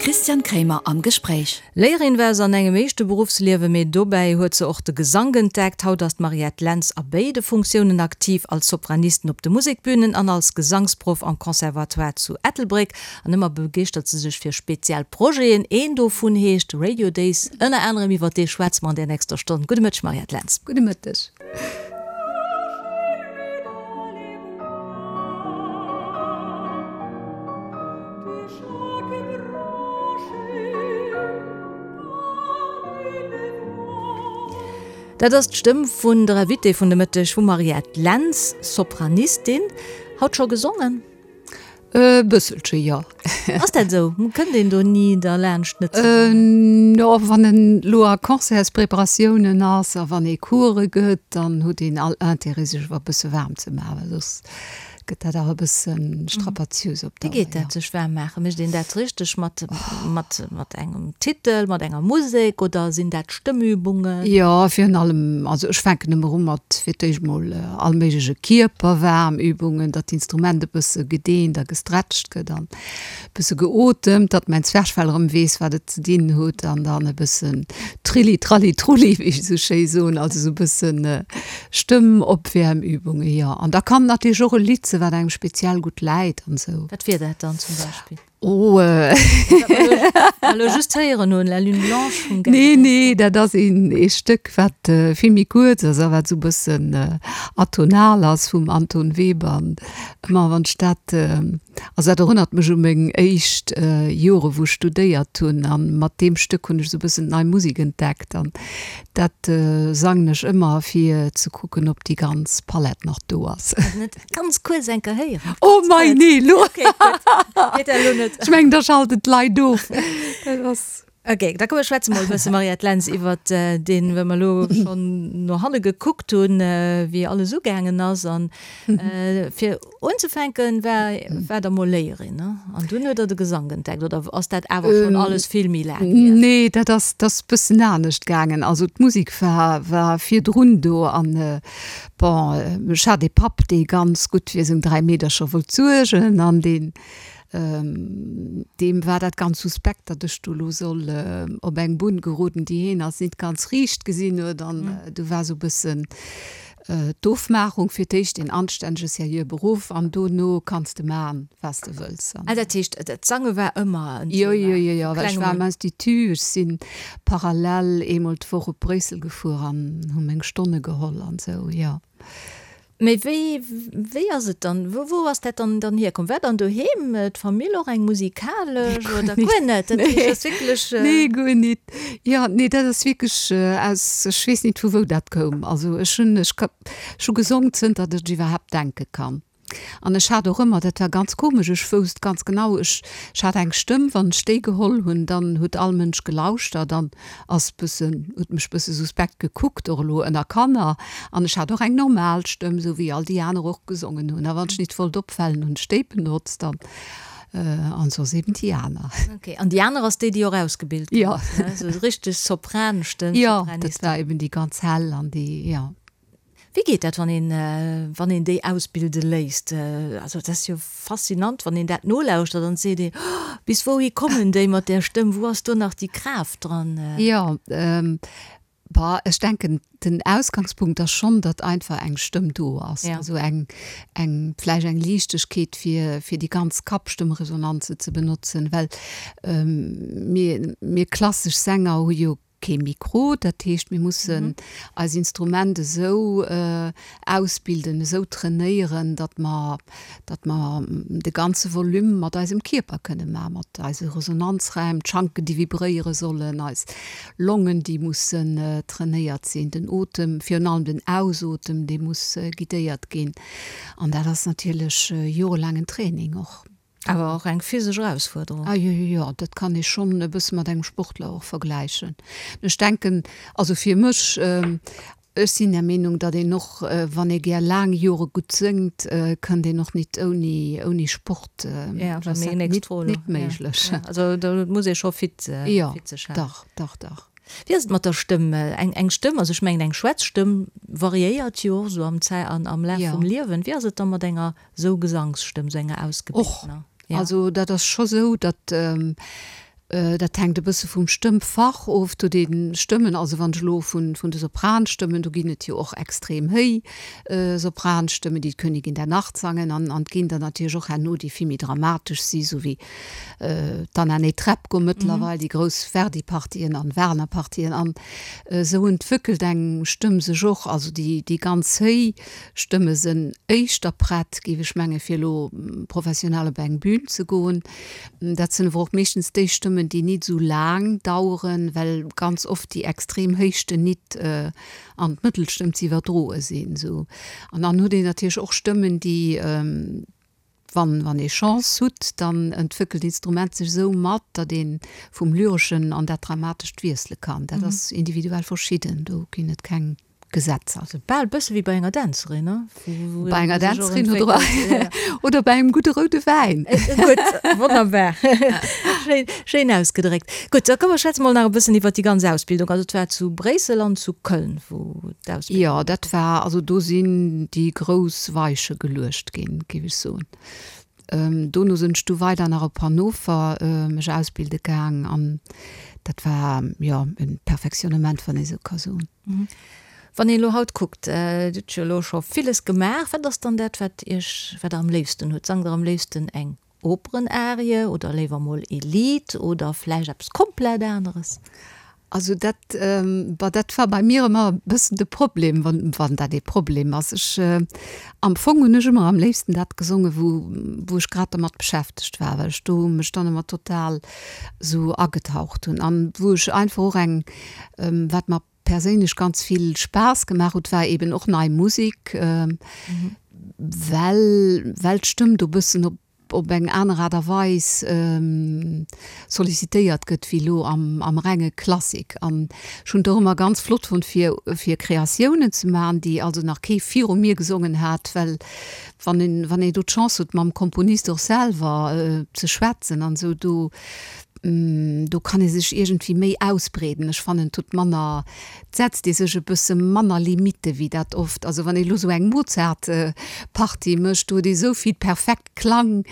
Christian Kremer am Gespréich. Léierin war se an engem éischte Beruffsliewe, mee dobäi huet se och de Gesank entdeckt. Haut ass d'Mariette Lentz a béide Funktiounen aktiv, als Sopranistin op de Musekbünen an als Gesangsproff am Conservatoire zu Ettelbréck. An ëmmer begeeschtert se sech fir speziell Projeten. Een dovun heescht Radio Days. Ënner anerem iwwer dee schwätze mer an der nächster Stonn. Gudde Mëtteg, Mariette Lentz. Gudde Mëtteg. Dat ass d'Stëmm vun der Invitée vun de Mëtteg, vum Mariette Lentz, Sopranistin. Haut scho gesongen? E bësselche, jo. Ass dat esou? Kënnt een do ni derlaanscht net ze sangen? Jo, wann en elo a Concertspreparatiounen ass a wann ee Course gëtt, dann huet een all Intérêt sech awer e bësse waarm ze maachen, well soss Gëtt dat awer e bësse strapaziös op Dauer, jo. Wéi geet dat, sech waarm maachen? Mécht een dat richteg mat, mat, mat engem Titel, mat enger Musek oder sinn dat Stëmmübungen? Jo, virun allem, also ech fänken ëmmer u mat fir d'éischt mol all méigleche Kierperwaarmübungen, datt d'Instrument e bësse gedeent a gestretcht gëtt an e bësse geotemt, datt mäin Zwerchfell erëm weess, wat et ze dinn huet an dann e bëssen Trilli Tralli Trulli, wéi ech esou schéi soen, also esou e bëssen Stëmmopwäermübungen, jo. An da kann natierlech och e Lidd sinn, wat engem speziell gutt läit an esou. Wat wier dat dann zum Beispill? Oh. Wat mer elo just héieren hunn, La lune blanche vum Gary Nee, nee, dat ass een ee Stéck, wat vill méi kuerz ass a wat esou e bëssen atonal ass, vum Anton Webern. Ëmmer wann ech dat, also dat erënnert mech u meng éischt Jore wou ech studéiert hunn a mat deem Stéck hunn ech esou e bëssen d'Nei Musek entdeckt an Dat sangen ech ëmmer fir ze kucken op déi ganz Palett nach do ass. Net ganz kuerz eng Kéier héieren? Oh mei nee lo. Okay gutt, geet dat elo net. Ech mengen da schalten d'Leit of. Dat ass. Ok, da komm mir schwätze mol e bësse Mariette Lentz iwwert deen, well mer elo schonn no hanne gekuckt hunn, wéi alles ugaangen ass an fir Unzefänken war war der mol Léierin, ne? An dunn huet der de Gesank entdeckt, oder ass dat awer schonn alles vill méi laang hier? Nee, dat ass dat ass bëssen anescht gaangen. Also d'Musek war war virdrun do an bon, ech hat ee Papp, dee ganz gutt fir seng 3 Meedercher wollt suergen an deen deem war dat ganz suspekt, datt ech do lo soll op eng Bunn geroden, déi heen als nit ganz riicht gesinn huet an du war sou bëssen D'Ofmaachung, fir d'éischt een anstännege seriöe Beruff an dono kanns de man, wat s de wëlls. Ah, dat heescht, d'Sange war ëmmer en Thema? Jo, jo, jo, jo, well ech war am Institut, ech si parallel eemol d'Woch op Bréissel gefuer an hu meng Stonne geholl an esou, jo. Mee wéi, wéi ass et dann, wou, wou ass dat dann, dann hierkomm? War dann doheem d'Famill och eng musikalesch oder guer net? Dat heescht, dat ass wierklech. Nee, guer net. Jo, nee, dat ass wierklech aus, ech weess nit vu wou dat koum. Also ech hunn, ech ka, ech hu gesong zënter datt ech iwwerhaapt denke kann. An ech hat och ëmmer, dat war ganz komesch, ech wousst ganz genau, ech, ech hat eng Stëmm, wann ech déi geholl hunn, dann huet all Mënsch gelauschtert an ass bëssen, huet mech bësse suspekt gekuckt, och elo ënner Kanner. An ech hat och eng normal Stëmm, esou wéi all déi aner och gesongen hunn. A wann ech nit wollt opfalen, hunn ech déi benotzt an. An soss eben déi aner. Ok, an déi aner ass déi, déi och ausgebilt ginn ass, ne? Esou richteg Sopranstëmm, Jo, dat war eben déi ganz hell an déi, jo. Wéi geet dat, wann een, wann een déi ausbilde léisst? Also dat ass jo faszinant, wann een dat nolauschtert an et seet een, Oh, bis wouhi kommen déi mat där Stëmm, wou ass do nach déi Kraaft dran? Jo, Bah, ech denken, den Ausgangspunkt ass schonn, datt einfach eng Stëmm do ass, also eng, eng, vläicht eng Liichtegkeet, fir, fir déi ganz Kappstëmmresonanze ze benotzen, well mir, mir klassesch Sänger hu jo kee Mikro, dat heescht, mir mussen eis Instrument esou ausbilden, esou trainéieren, datt mer, datt mer de ganze Volume mat eisem Kierper kënne maachen, mat eise Resonanzräim, d'Schanken, déi vibréiere sollen, eis Longen, déi mussen trainéiert sinn, den Otem, virun allem den Ausotem, dee muss guidéiert ginn. An dat ass natierlech jorelaangen Training och. Awer och eng physesch Erausfuerderung. Ah jo, jo, jo, dat kann ee schonn e bësse mat engem Sportler och vergläichen. Ech denken, also fir mech, ech sinn der Meenung, datt een och, wann ee gär laang Jore gutt séngt, kënnt een och nit ouni, ouni Sport. Ja, dat ass nit, nit méiglech. Also do muss ee scho fit, fit sech halen. Jo, dach, dach, dach. Wéi ass et mat der Stëmm? Eng, eng Stëmm, also ech mengen eng Schwätzstëmm variéiert jo och esou am Zäi, an am Laf vum Liewen. Wéi ass et da mat enger Sou Gesangsstëmm, sou enger ausgebiltener. Och, also dat ass scho sou, datt. Dat hänkt e bësse vum Stëmmfach of. Do déi Stëmmen, also wann ech elo vun de Sopranstëmmen, do ginn et jo och extrem héi Sopranstëmmen, déi d'Königin der Nacht sangen, an an et ginn der natierlech och herno, déi vill méi dramatesch si, sou wéi d'Anna Netrebko mëttlerweil, déi grouss Verdi-Partien an Wagner-Partien. An esou entwéckelt eng Stëmm sech och, also déi déi ganz héi Stëmme sënn éischter prett, géif ech menge fir elo professionell op eng Bühn ze goen. Dat sinn awer och meeschtens déi Stëmmen, déi nit esou laang daueren, well ganz oft déi extrem Héichten nit an d'Mëttelstëmm ze iwwerdroe sinn. Esou. An dann huet een natierlech och Stëmmen, déi, wann, wann ee Chance hutt, dann entwéckelt d'Instrument sech esou mat, datt ee vum Lyreschen an dat Dramatescht wiessele kann. Dat ass individuell verschidden, do ginn et keng. Gesetzer. Also bal bësse wéi bei enger Dänzerin, ne? Bei enger Dänzerin oder, oder bei engem gudde roude Wäin. Gutt, wonnerbar. Schéin, schéin ausgedréckt. Gutt, da komm mer schwätze mol nach e bëssen iwwert déi ganz Ausbildung. Also et war zu Bréissel an zu Köln, wou d'Ausbildung. Jo, dat war, also do sinn déi grouss Weiche geluecht ginn, géif ech soen. Dono sinn ech du weider nach op Hannover mech ausbilde gaang an dat war, jo, e Perfectionnement, wann ee sou ka soen. Wann een elo haut kuckt, Dir hutt jo elo scho villes gemaach, wat ass dann dat, wat Iech, wat Der am léifsten hutt? Sangt Der am léifsten eng Operenarie oder léiwer mol ee Lidd oder vläicht eppes komplett aneres? Also dat, bah, dat war bei mir ëmmer e bëssen de Problem, wann, wann dat ee Problem ass. Ech, am Fong hunn ech ëmmer am léifsten dat gesongen, wou, wou ech grad dermat beschäftegt war, well ech do mech dann ëmmer total esou agetaucht hunn an wou ech einfach och eng, wat mer perséinlech ganz vill Spaass gemaach huet, war eben och nei Musek, well, well d'Stëmm do bëssen op, op eng aner Aart a Weis sollicitéiert gëtt wéi elo am, am renge Klassik. An ech hunn et och ëmmer ganz flott fonnt fir, fir Kreatiounen ze maachen, déi also nach kee viru mir gesongen hat, well wann een, wann een do d'Chance huet mam Komponist och selwer ze schwätzen an esou, do, do kann ee sech iergendwéi méi ausbreeden. Ech fannen, et huet manner, et setzt ee sech e bësse manner Limitte wéi dat oft. Also wann ee elo sou eng Mozart-Partie mécht, do huet ee sou vill perfekt Klang,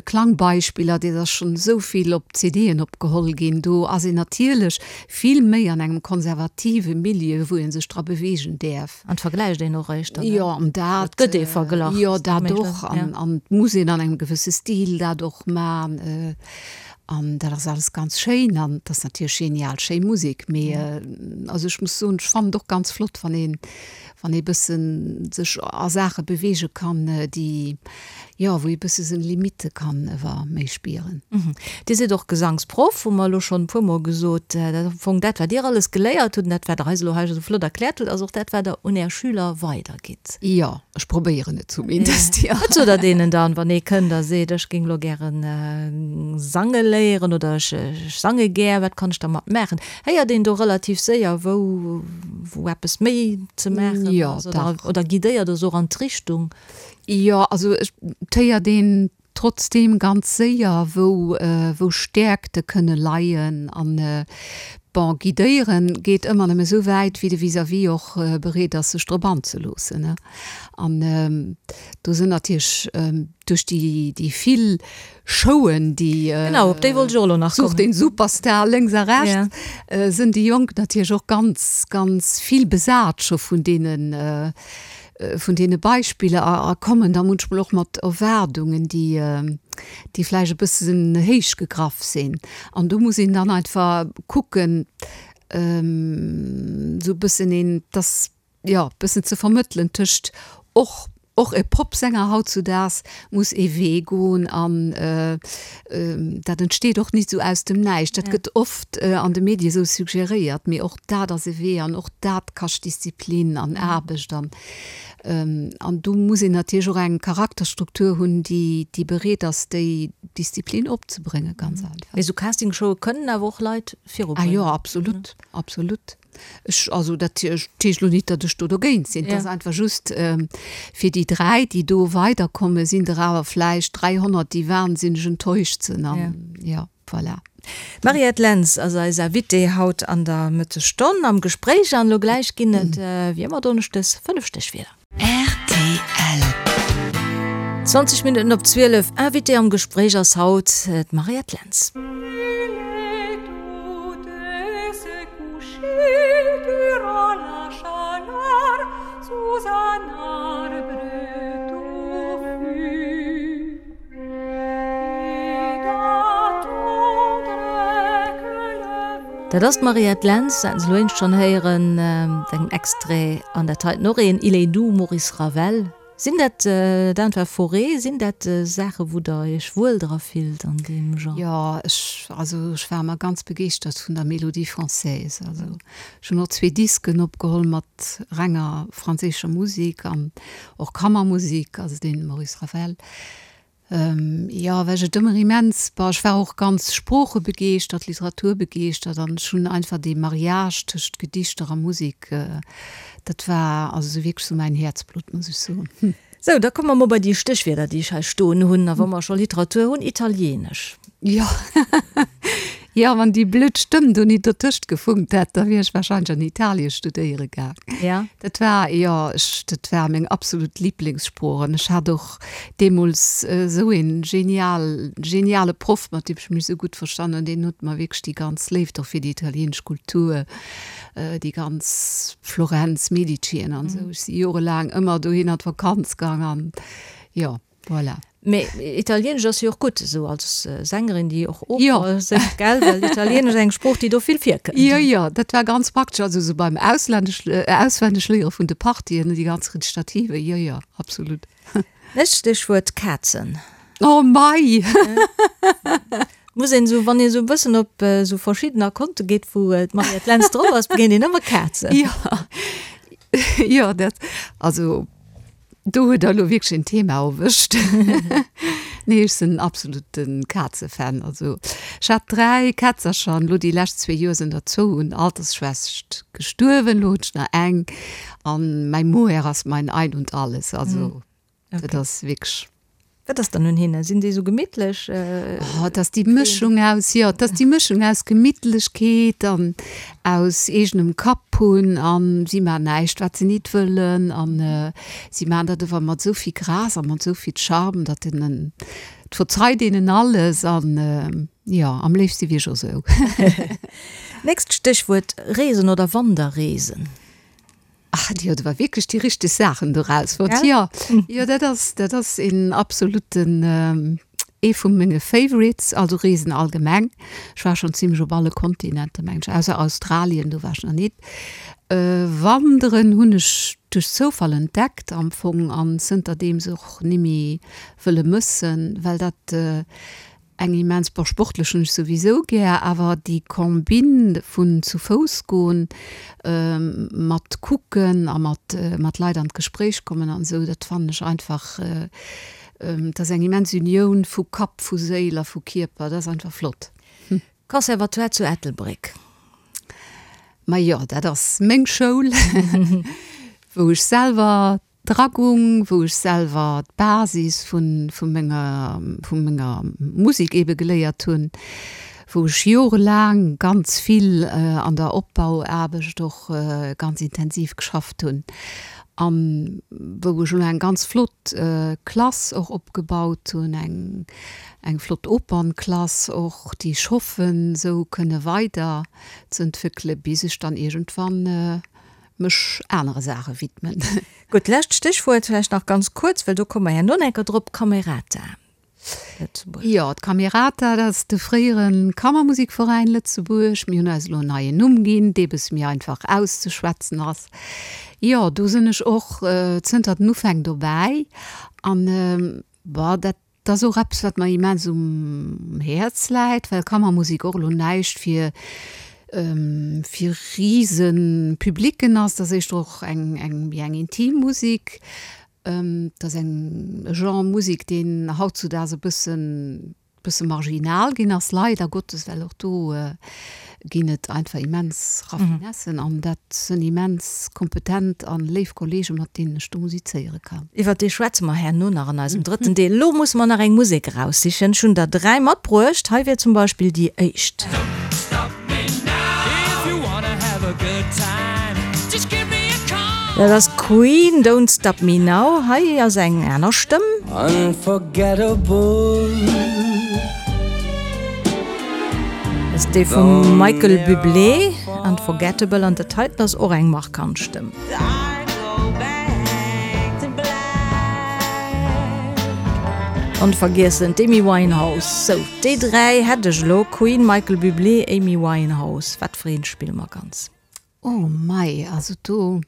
Klangbeispiller, dat ass schonn esou vill op CDen opgeholl ginn. Do ass een natierlech vill méi an engem konservative Milieu, wou ee sech dra beweegen däerf. An et vergläicht een och éischter, ne? Jo, an dat. Et gëtt ee verglach. Jo, dat och. An et muss een an engem gewësse Stil dat och man. An dat ass alles ganz schéin an et ass natierlech genial schéi Musek. Mee also ech muss soen, ech fannen et och ganz flott, wann een, wann ee bëssen sech a Saache beweege kann, déi, jo, wou ee bësse seng Limitte kann ewer méi spieren. Dir sidd och Gesangsproff, hu mer elo schonn e puermol gesot. Dat ass am Fong dat, wat Dir alles geléiert hutt an dat, wat Der eis elo hei esou flott erkläert hutt, ass och dat, wat Der un Är Schüler weidergitt. Jo, ech probéieren et zumindest, jo. Wat sot Der deenen dann, wann ee kënnt a seet, ech géing elo gäre sange léieren oder ech sange gär, wat kann ech dermat maachen? Héiert een do relativ séier, wou wou eppes méi ze maachen ass oder oder guidéiert Der se och an d'Richtung? Jo, also et héiert een trotzdeem ganz séier, wou wou Stäerkte kënne leien. An bon, guidéieren geet ëmmer nëmme esou wäit, wéi de Vis-à-vis och bereet ass, sech drop anzeloossen. An do sinn natierlech duerch déi déi vill Showen, déi Genau, op déi wollt ech och elo nach kommen. Such den Superstar lénks a rechts, sinn déi Jonk natierlech och ganz, ganz vill besat scho vun deene, vun deene Beispiller a a kommen da munchmol och mat Erwaardungen, déi, déi vläicht e bëssen héich gegraff sinn. An do muss een dann einfach kucken, esou e bëssen een, dass jo, bëssen ze vermëttelen tëscht och, och e Popsänger hautzudaags muss ee Wee goen an dat entsteet och nit esou aus dem Näischt. Dat gëtt oft an de Medie esou suggeréiert, mee och dat ass e Wee an och dat kascht Disziplin an Aarbecht an an do muss een natierlech och eng Charakterstruktur hunn, déi, déi bereet ass, déi Disziplin opzebréngen, ganz einfach. Mee esou Castingshowe kënnen awer och Leit virubréngen. Ah jo, absolut, absolut. Ech, also dat heescht elo nit, datt ech do dogéint sinn. Et ass einfach just, fir déi 3, déi do weiderkommen, sinn der awer vläicht 300, déi wahnsinneg enttäuscht sinn. An jo, voilà. D'Mariette Lentz ass eis Invitée haut an der Mëttesstonn am Gespréich. An elo gläich ginn et, wéi ëmmer donneschdes, 5 Stéchwierder. Rtl. 20 Minutten op 12, Invitée am Gespréich ass haut d'Mariette Lentz. Dat ass d'Mariette Lentz, dat haten se elo éinescht schonn héieren, mat engem Extrait. An dat heiten och een, Il est doux, Maurice Ravel. Sinn dat, d'Anne Fauré, sinn dat Saachen, wou Der Iech wuel dra fillt an deem Genre? Jo, ech, also ech war ëmmer ganz begeeschtert vun der Mélodie française. Also ech hunn och zwee Disken opgeholl mat renger franséischer Musek an och Kammermusek, also dee Maurice Ravel. Jo, well ech et ëmmer immens, bon, ech war och ganz sproochebegeeschtert, literaturbegeeschtert an ech hunn einfach dee Mariage tëscht Gedichter a Musek, dat war also sou wierklech sou mäin Häerzblutt, muss ech soen. Sou, da komme mer mol bei déi Stéchwierder, déi ech hei stoen hunn. A wa mer scho Literatur hunn, Italieenesch. Jo, jo, wann déi blöd Stëmm do nit dertëscht gefunkt hätt, da wier ech wahrscheinlech an Italien studéiere gaang. Ja. Dat war, jo, ech, dat war meng absolut Liblingssprooch an ech hat och deemools esou een genial, geniale Proff, mat deem ech mech esou gutt verstanen hunn, deen huet mer wierklech déi ganz Léift och fir déi italienesch Kultur, déi ganz Florenz, Medicien an esou, ech si jorelaang ëmmer dohin an d'Vakanz gaang an jo. Voilà. Mee Italienesch ass jo och gutt, esou als Sängerin, déi och Oper séngt, gell? Well Italienesch ass eng Sprooch, déi do vill virkënnt. Jo, jo, dat war ganz praktesch, also esou beim Auslännesch, Auswennegléiere vun de Partien, déi ganz Rezitativen, jo, jo, absolut. Nächst Stéchwuert, Kazen. Oh mei! Muss een esou, wann een esou e bëssen op esou verschiddener Konte geet, wou d'Mariette Lentz drop ass, begéint een ëmmer Kazen. Jo, jo, dat, also. Do huet der elo wierklech een Thema erwëscht. Nee, ech sinn absoluten Kazefan. Also ech hat 3 Kätzercher an elo déi lescht zwee Joer sinn der zwou un Altersschwächt gestuerwen. Elo hunn ech nach eng an mäi Mohair ass mein Ein und Alles. Also dat ass wierklech. Wat ass dann un hinnen? Sinn déi esou gemittlech? Oh, et ass déi Mëschung aus, jo, et ass déi Mëschung aus Gemittlechkeet an aus eegenem Kapp hunn an si maachen näischt, wat se nit wëllen an si maachen dat ower mat esou vill Grâce a mat esou vill Charme, datt een en, et verzeit een en alles an jo, am léifste wier ech och esou. Nächst Stéchwuert, Reesen oder Wanderreesen? Ach, Dir huet awer wierklech déi richteg Saachen do rausfonnt. Jo, jo, dat ass, dat ass een absoluten, ee vu menge Favorites, also Reesen allgemeng. Ech war schonn zimlech op alle Kontinenter, mengen ech, ausser Australien, do war ech nach nit. Wanderen hunn ech duerch Zoufall entdeckt am Fong an zënterdeems och nimmi wëlle mëssen, well dat, Eng immens, bon sportlech hunn ech souwisou gär, awer déi Combine vun zu Fouss goen, mat kucken a mat mat Leit an d'Gespréich kommen an esou, dat fannen ech einfach, dat ass eng immens Unioun vu Kapp, vu Séil a vu Kierper, dat ass einfach flott. Conservatoire zu Ettelbréck. Majo, dat ass meng Schoul, wou ech selwer Dragung, wou ech selwer d'Basis vu vu menger vu menger Musek eebe geléiert hunn, wou ech jorelaang ganz vill an der Opbauaarbecht och ganz intensiv geschafft hunn an wou ech elo eng ganz flott Klass och opgebaut hunn, eng eng flott Opernklass och, déi ech hoffen esou kënne weider ze entwéckele bis ech dann iergendwann mech anere Saache widmen. Gutt, lescht Stéchwuert vläicht nach ganz kuerz, well do komme mer herno nach eng Kéier drop, Camerata Lëtzebuerg. Jo, d'Camerata, dat ass de fréiere Kammermusikveräin Lëtzebuerg. Mir hunn eis elo en neien Numm ginn, dee bësse méi einfach auszeschwätzen ass. Jo, do sinn ech och zënter den Ufäng dobäi an, bon, dat Dat ass och eppes, wat mer immens um Häerz läit, well Kammermusek och elo näischt fir fir rise Publicken ass. Dat ass éischter och eng eng méi eng intim Musek. Dat ass eng e Genre Musek, deen hautzudaags e bëssen bësse marginal ginn ass, leider Gottes, well och do ginn et einfach immens Raffinessen an dat sënn immens kompetent an léif Kollegen, mat deenen ech do musizéiere kann. Iwwert déi schwätze mer herno nach an eisem drëtten Deel. Elo musse mer nach eng Musek eraussichen. Ech hunn der 3 matbruecht. Hei wier zum Beispill déi éischt. Dat ass Queen, Don't Stop Me Now. Hei ass eng aner Stëmm. Dat ass dee vum Michael Bublé, Unforgettable. An dat heiten ass och eng markant Stëmm. Onvergiessen d'Amy Winehouse. Sou, déi 3 hätt ech elo, Queen, Michael Bublé, Amy Winehouse. Wat fir eent spille mer ganz? Oh mei, also do,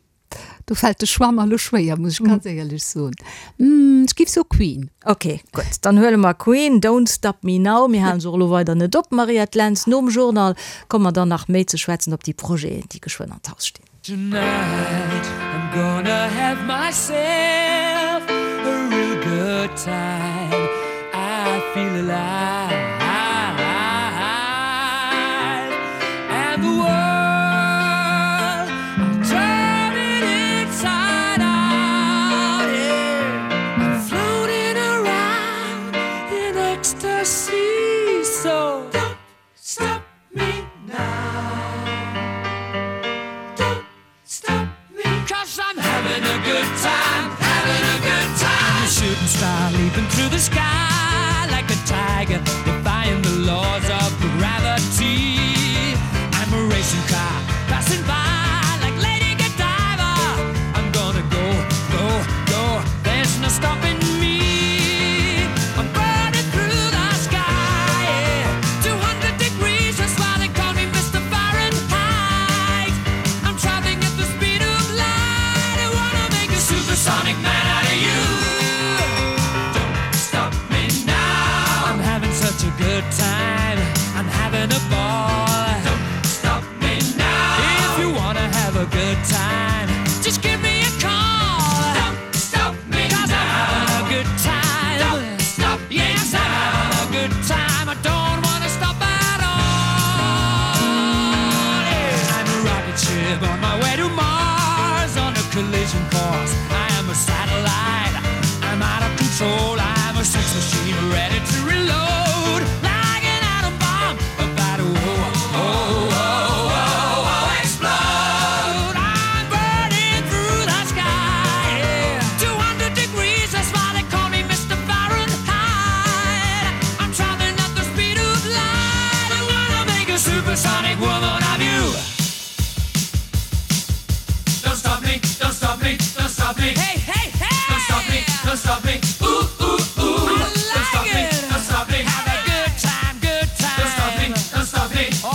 do fält de Choix mer elo schwéier, muss ech ganz éierlech soen. Ech giff soe Queen. Ok, gutt, dann huele mer Queen, Don't Stop Me Now. Mir halen se och elo weider net op, Mariette Lentz. Nom Journal komme mer dann nach méi ze schwätzen op déi Projeten, déi geschwënn an d'Haus stinn. Tonight I'm gonna have myself a real good time I feel alive And the world I'm turning inside out yeah I'm floating around in ecstasy So don't stop me now Don't stop me Cause I'm having a good time having a good time I'm a shooting star leaping through the sky like a tiger defying the laws of gravity I'm a racing car passing by like Lady Godiva I'm gonna go go go there's no stopping me I'm burning through the sky yeah. 200 degrees that's why they call me Mr. Fahrenheit I'm traveling at the speed of light I wanna make a supersonic man out of you Don't stop me now I'm having such a good time I'm having a ball Don't stop me now If you wanna have a good time Just give me a call Don't stop me Cause now. I'm having a good time Don't stop yes, me now. I'm having a good time I don't wanna stop at all yeah. I'm a rocket ship on my way to Mars On a collision course I am a satellite I'm out of control I'm a sex machine ready to reload Like an atom bomb about to oh, oh, oh, oh, oh, explode I'm burning through the sky yeah. 200 degrees, that's why they call me Mr. Fahrenheit I'm traveling at the speed of light I wanna make a supersonic woman of you Don't stop me, don't stop me, don't stop me Hey, hey, hey! Don't stop me, don't stop me Ooh, ooh, ooh I like don't stop it. me, don't stop me Have a good time, good time Don't stop me, don't stop me Oh!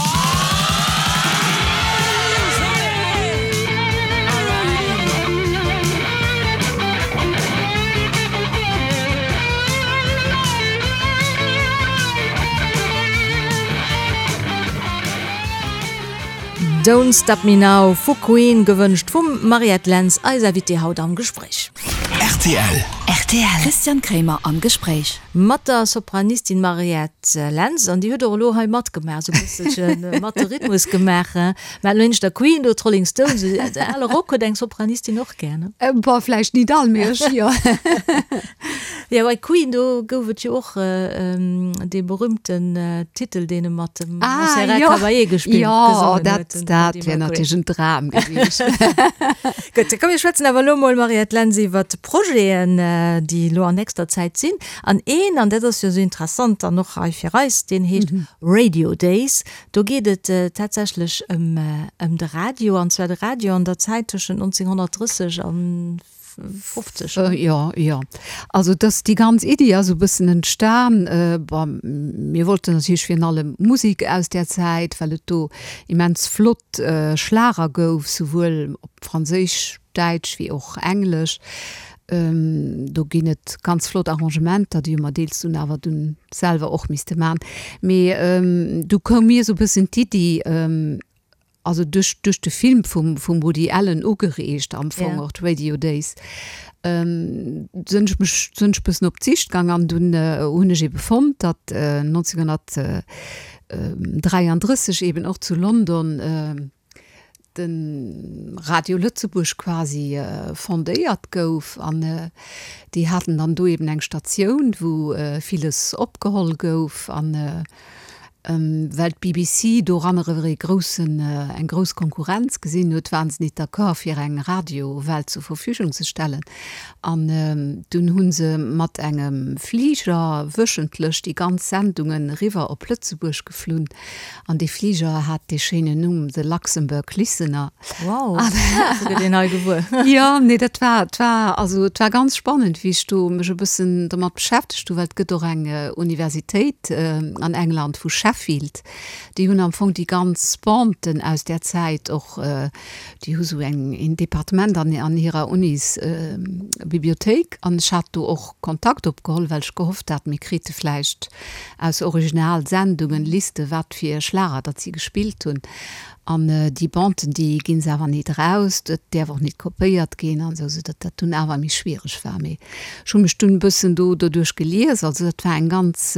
Don't Stop Me Now vu Queen, gewënscht vum Mariette Lentz, eis Invitée haut am Gespréich. Rtl. Rtl. Christian Kremer am Gespréich. Mat der Sopranistin Mariette Lentz, an déi huet och elo hei matgemaach, esou e bësselche mat de Rhythmus gemaach. Mä elo nieft der Queen do, d'Rolling Stones, de ale Rock huet eng Sopranistin och gär, ne? Bon, vläicht nit all, mee ech jo. Jo, bei Queen, do gouf et jo och dee berühmten Titel, deen e mat dem Montserrat Caballé gespillt, gesongen huet. Jo, dat wär natierlech en Dram gewiescht. Gutt, komm mir schwätzen awer elo mol, Mariette Lentz, iwwert d'Projeten, déi elo an nächster Zäit sinn. An een, an dat ass jo esou interessant dann och hei fir eis, deen heescht Radio Days. Do geet et tatsächlech ëm de Radio, an zwar de Radio an der Zäit tëschent 1930 an 50. Jo, jo. Also dass déi ganz Iddi ass esou e bëssen entstan, bon, mir wollten natierlech virun allem Musek aus där Zäit, well et do immens flott Schlager gouf, souwuel op Franséisch, Däitsch wéi och Englesch. Do ginn et ganz flott Arrangementer, déi hu mer deels dunn awer dunn selwer och misste man. Mee du koum mir esou e bëssen d'Iddi, also duerch duerch de Film vum vum Woody Allen ugereegt am Fong och d'Radio Days, sinn ech mech sinn ech bëssen op d'Sicht gang an dunn hunn ech ebe fonnt, datt 1933 eben och zu London de Radio Lëtzebuerg quasi fondéiert gouf an déi haten dann do eben eng Statioun wou villes opgeholl gouf an. Well d'BBC doranner ee groussen, eng grouss Konkurrenz gesinn huet, waren se nit d'accord fir eng Radiowell zur Verfügung ze stellen. An dunn hu se mat engem Fliger wöchentlech déi ganz Sendungen eriwwer op Lëtzebuerg geflunn. An dee Fliger hat dee schéinen Numm The Luxembourg Listener. Wow, sou gëtt een hei gewuer. Jo, nee, dat war, et war, also et war ganz spannend, wéi ech do mech e bëssen domat beschäftegt hu, well et gëtt och eng Universitéit an England vu Sheffield, déi hunn am Fong déi ganz Banden aus där Zäit och, déi hu sou eng, een Departement an an hirer Unis Bibliothéik an ech hat do och Kontakt opgeholl, well ech gehofft hat, mir krite vläicht aus Originalsendungen Liste wat fir Schlager datt si gespillt hunn. An déi Banden, déi ginn se awer nit eraus, dat däerf och nit kopéiert ginn an esou, soudatt dat dunn awer méi schwiereg war. Mee ech hu mech dunn e bëssen do doduerch gelies. Also dat war eng ganz,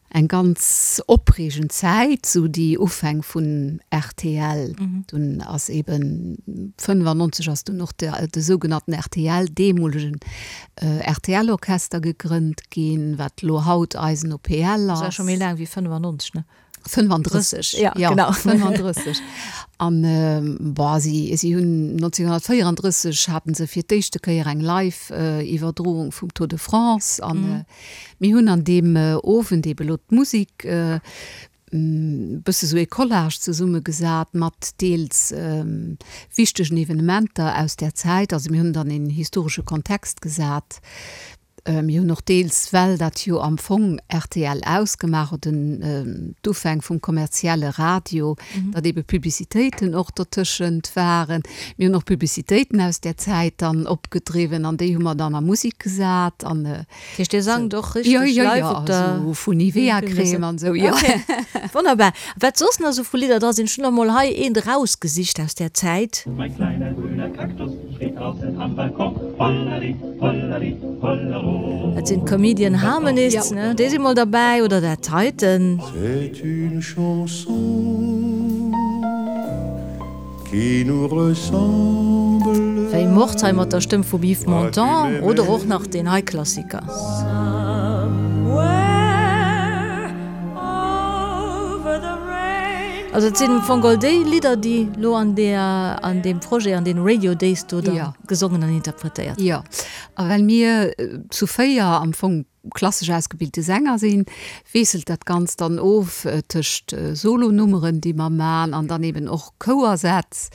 eng ganz opreegend Zäit, esou déi Ufäng vun rtl. Dunn ass eeben 95 ass dunn och de de sougenannten rtl, deemolegen RTL-Orchester gegrënnt ginn, wat elo haut eisen OPL ass. Dat ass scho méi laang wéi 95, ne? 35, ja, ja, genau. 35. An boah, si, si hunn 1934 haten se fir d'éischte Kéier eng Live-Iwwerdroung vum Tour de France. An mm. mir hunn an deem Owend ebe lo d'Musik bësse sou ee Collage zesummegesat mat deels wichtegen Evenementer aus där Zäit. Also mir hunn dann een historesche Kontext gesat. Mir hunn och deels, well dat jo am Fong rtl ausgemaach huet, den d'Ufäng vum kommerzielle Radio, datt eebe Publicitéiten och dertëschent waren. Mir hunn och Publicitéiten aus där Zäit dann opgedriwwen an déi hu mer dann a Musek gesat an. Dat heescht, Dir sangt och richteg live op der. Jo, jo, jo, esou vu Nivea-Crème an esou, jo. Okay, wonnerbar. Wat soss nach esou vu Lidder dra sinn, ech hunn der mol hei eent erausgesicht aus där Zäit. Mein kleiner grüner Kaktus steht draußen am Balkon, hollali, hollali, hollero. Dat sinn d'Comedian Harmonists, ne? Déi si mol derbäi, oder dat heiten. C'est une chanson qui nous ressemble. Wéi Mord hei mat der Stëmm vum Yves Montand, oder och nach deen hei Klassiker. Also et sinn am Fong all déi Lidder, déi lo an där, an deem Projet, an deene Radio Days do da gesongen an interpretéiert ginn. Jo, a well mir zu 4 am Fong klassesch ausgebilte Sänger sinn, wiesselt dat Ganzt dann of tëscht Solonummeren, déi mer man, an dann eben och Chouersätz,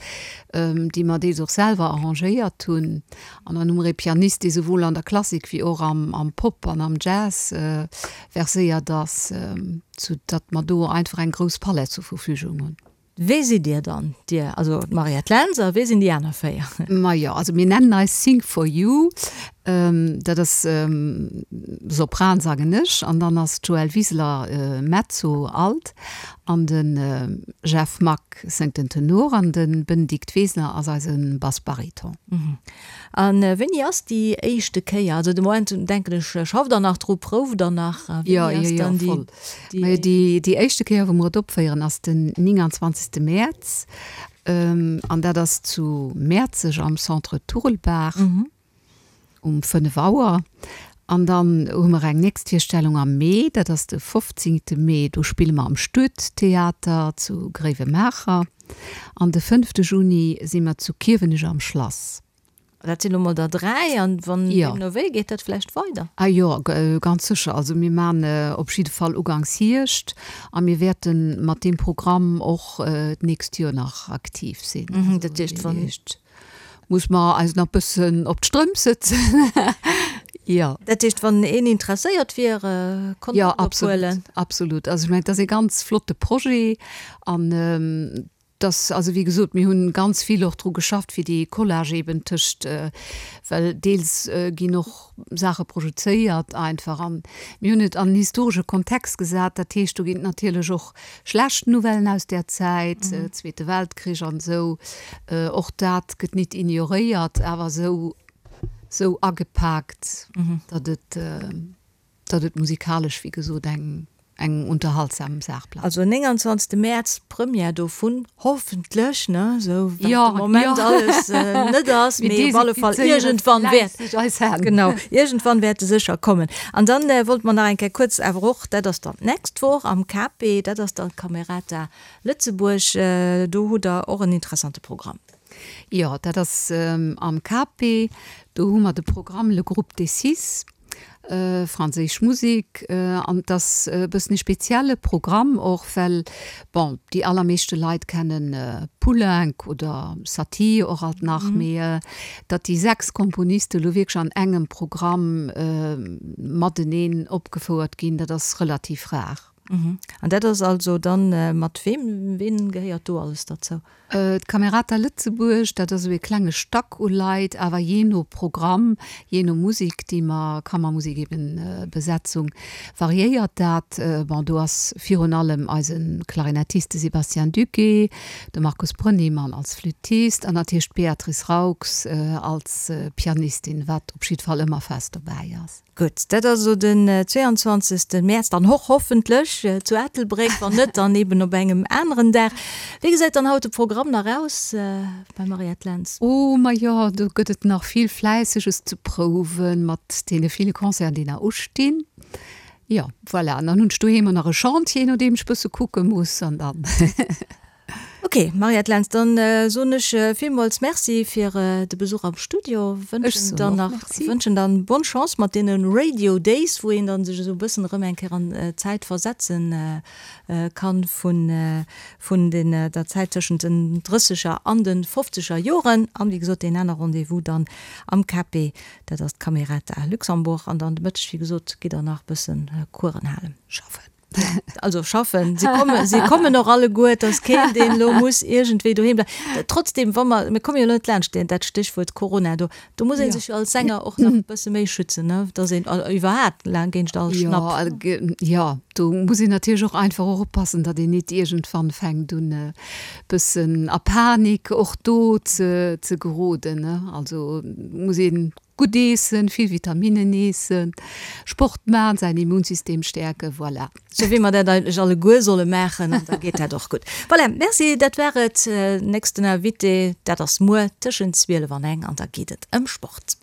déi mer deels och selwer arrangéiert hunn. An dann hu mer ee Pianist, dee souwuel an der Klassik wéi och am Pop an am Jazz verséiert ass, sou datt mer do einfach eng grouss Palett zur Verfügung hunn. Wee sidd Dir dann, Dir, also d'Mariette Lentz, a wee sinn déi aner 4? Majo, also mir nennen eis Sing for You, dat ass Sopran sangen ech, an dann ass d'Joëlle Wiseler Mezzo, Alt, an de Jeff Mack séngt den Tenor an de Benedikt Wesner ass eise Bass-Bariton. A wéini ass déi éischte Kéier? Also de Moment denken ech, schafft der nach dru, prouft der nach? Jo, jo, jo, voll. Majo, déi, déi éischte Kéier, wou mer et opféieren, ass den 29. Mäerz. An dat ass zu Mäerzeg am Centre Turelbaach um 5 Auer. An dann hu mer eng nächst Virstellung am Mee, dat ass de 15. Mee, do spille mer am Stuedtheater zu Gréiwemaacher. An de 5. Juni si mer zu Kiewenech am Schlass. Dat sinn elo mol der 3, an wann deemno wéi, geet dat vläicht weider? Ah jo, ganz sécher. Also mir man op jidde Fall uganks Hierscht a mir wäerte mat deem Programm och d'nächst Joer nach aktiv sinn. Dat heescht, wann. Muss mer eis nach bëssen op d'Strëmp sëtzen. Jo. Dat heescht, wann een interesséiert wier, Kontakt ophuelen? Jo, absolut, absolut. Also ech mengen, et ass ee ganz flotte Projet an dass, also wéi gesot, mir hunn ganz vill och dru geschafft, fir dee Collage eben tëscht, well deels ginn och Saache projezéiert einfach an mir hunn et an en historesche Kontext gesat. Dat heescht, do ginn et natierlech och schlecht Nouvellen aus där Zäit, Zweete Weltkrich an esou, och dat gëtt nit ignoréiert, awer esou, esou agepaakt, datt et, datt et musikalesch, wéi gesot, eng. eng unterhaltsam Saach bleift. Also 29 Mäerz d'Première dovun, hoffentlech, ne, esou wat de Moment alles net ass, mee op alle Fall iergendwann wäert, genau, iergendwann wäert e sécher kommen. An dann wollte mer nach eng Kéier kuerz awer och, dat ass dann d'nächst Woch am KP, dat ass dann d'Camerata Lëtzebuerg, do hutt Der och en interessante Programm. Jo, dat ass am KP, do hu mer de Programm Le Groupe des Six. Franséisch Musek an et ass e bëssen e spezielle Programm och, well bon, déi allermeeschte Leit kennen Poulenc oder Satie och alt nach, mee datt déi 6 Komponiste lo wierklech an engem Programm mateneen opgefouert ginn, dat ass relativ rar. An dat ass also dann mat weem, ween gehéiert do alles derzou? D'Camerata Lëtzebuerg, dat ass esou ee klenge Stack u Leit, awer jee no Programm, jee no Musek, déi mer, Kammermusek eben, Besetzung, variéiert dat. Bon, do ass virun allem eise Klarinettist, de Sébastien Duquet, de Markus Brönnimann als Flüttist an natierlech d'Beatrice Raux als Pianistin, wat op jiddwer Fall ëmmer fest dobäi ass. Gutt, dat ass elo den 22. Mäerz, dann och hoffentlech zu Ettelbréck, wann net, dann eben op engem aneren Dag. Wéi gesäit dann haut de Programm nach aus beim Mariette Lentz? Oh, majo, do gëtt et nach vill Fläisseges ze prouwen, mat deene ville Concerten, déi nach ustinn. Jo, voilà, an dann hunn ech doheem och nach e Chantier, no deem ech bësse kucke muss, an dann. Ok, Mariette Lentz, dann soen ech villmools Merci fir de Besuch am Studio, wënschen dann nach, wënschen dann bonne Chance mat deene Radio Days, wou een dann sech esou e bëssen erëm eng Kéier an d'Zäit versetzen kann vun, vun den, der Zäit tëschent den drësseger an de fofzeger Joren. An wéi gesot, deen aner Rendez-vous dann am KP, dat ass d'Camerata Luxembourg. An dann de Mëtteg, wéi gesot, gitt der nach e bëssen Coursen halen. Schaffen. Also schaffen, si kommen, si kommen och alleguer, et ass keen, deen elo muss iergendwéi doheem bleiwen. Trotzdem, wa mer, mir komme jo elo net laanscht deen, dat Stéchwuert Corona do, do muss ee sech jo als Sänger och nach e bësse méi schützen, ne, dass een iwwerhaapt laang géint all Schnapp. Jo, jo, do muss een natierlech och einfach och oppassen, datt een nit iergendwann fänkt un e bëssen a Panik och do ze, ze geroden, ne. Also muss een Gutt eessen, vill Vitaminnen eessen, Sport man, säin Immunsystem stäerken, voilà. Sou wéi mer dat eigentlech alleguer solle maachen, an da geet dat och gutt. Voilà, merci, dat war et. Nächsten Invité, dat ass muer tëschent 12 an eng, an da geet et ëm Sport.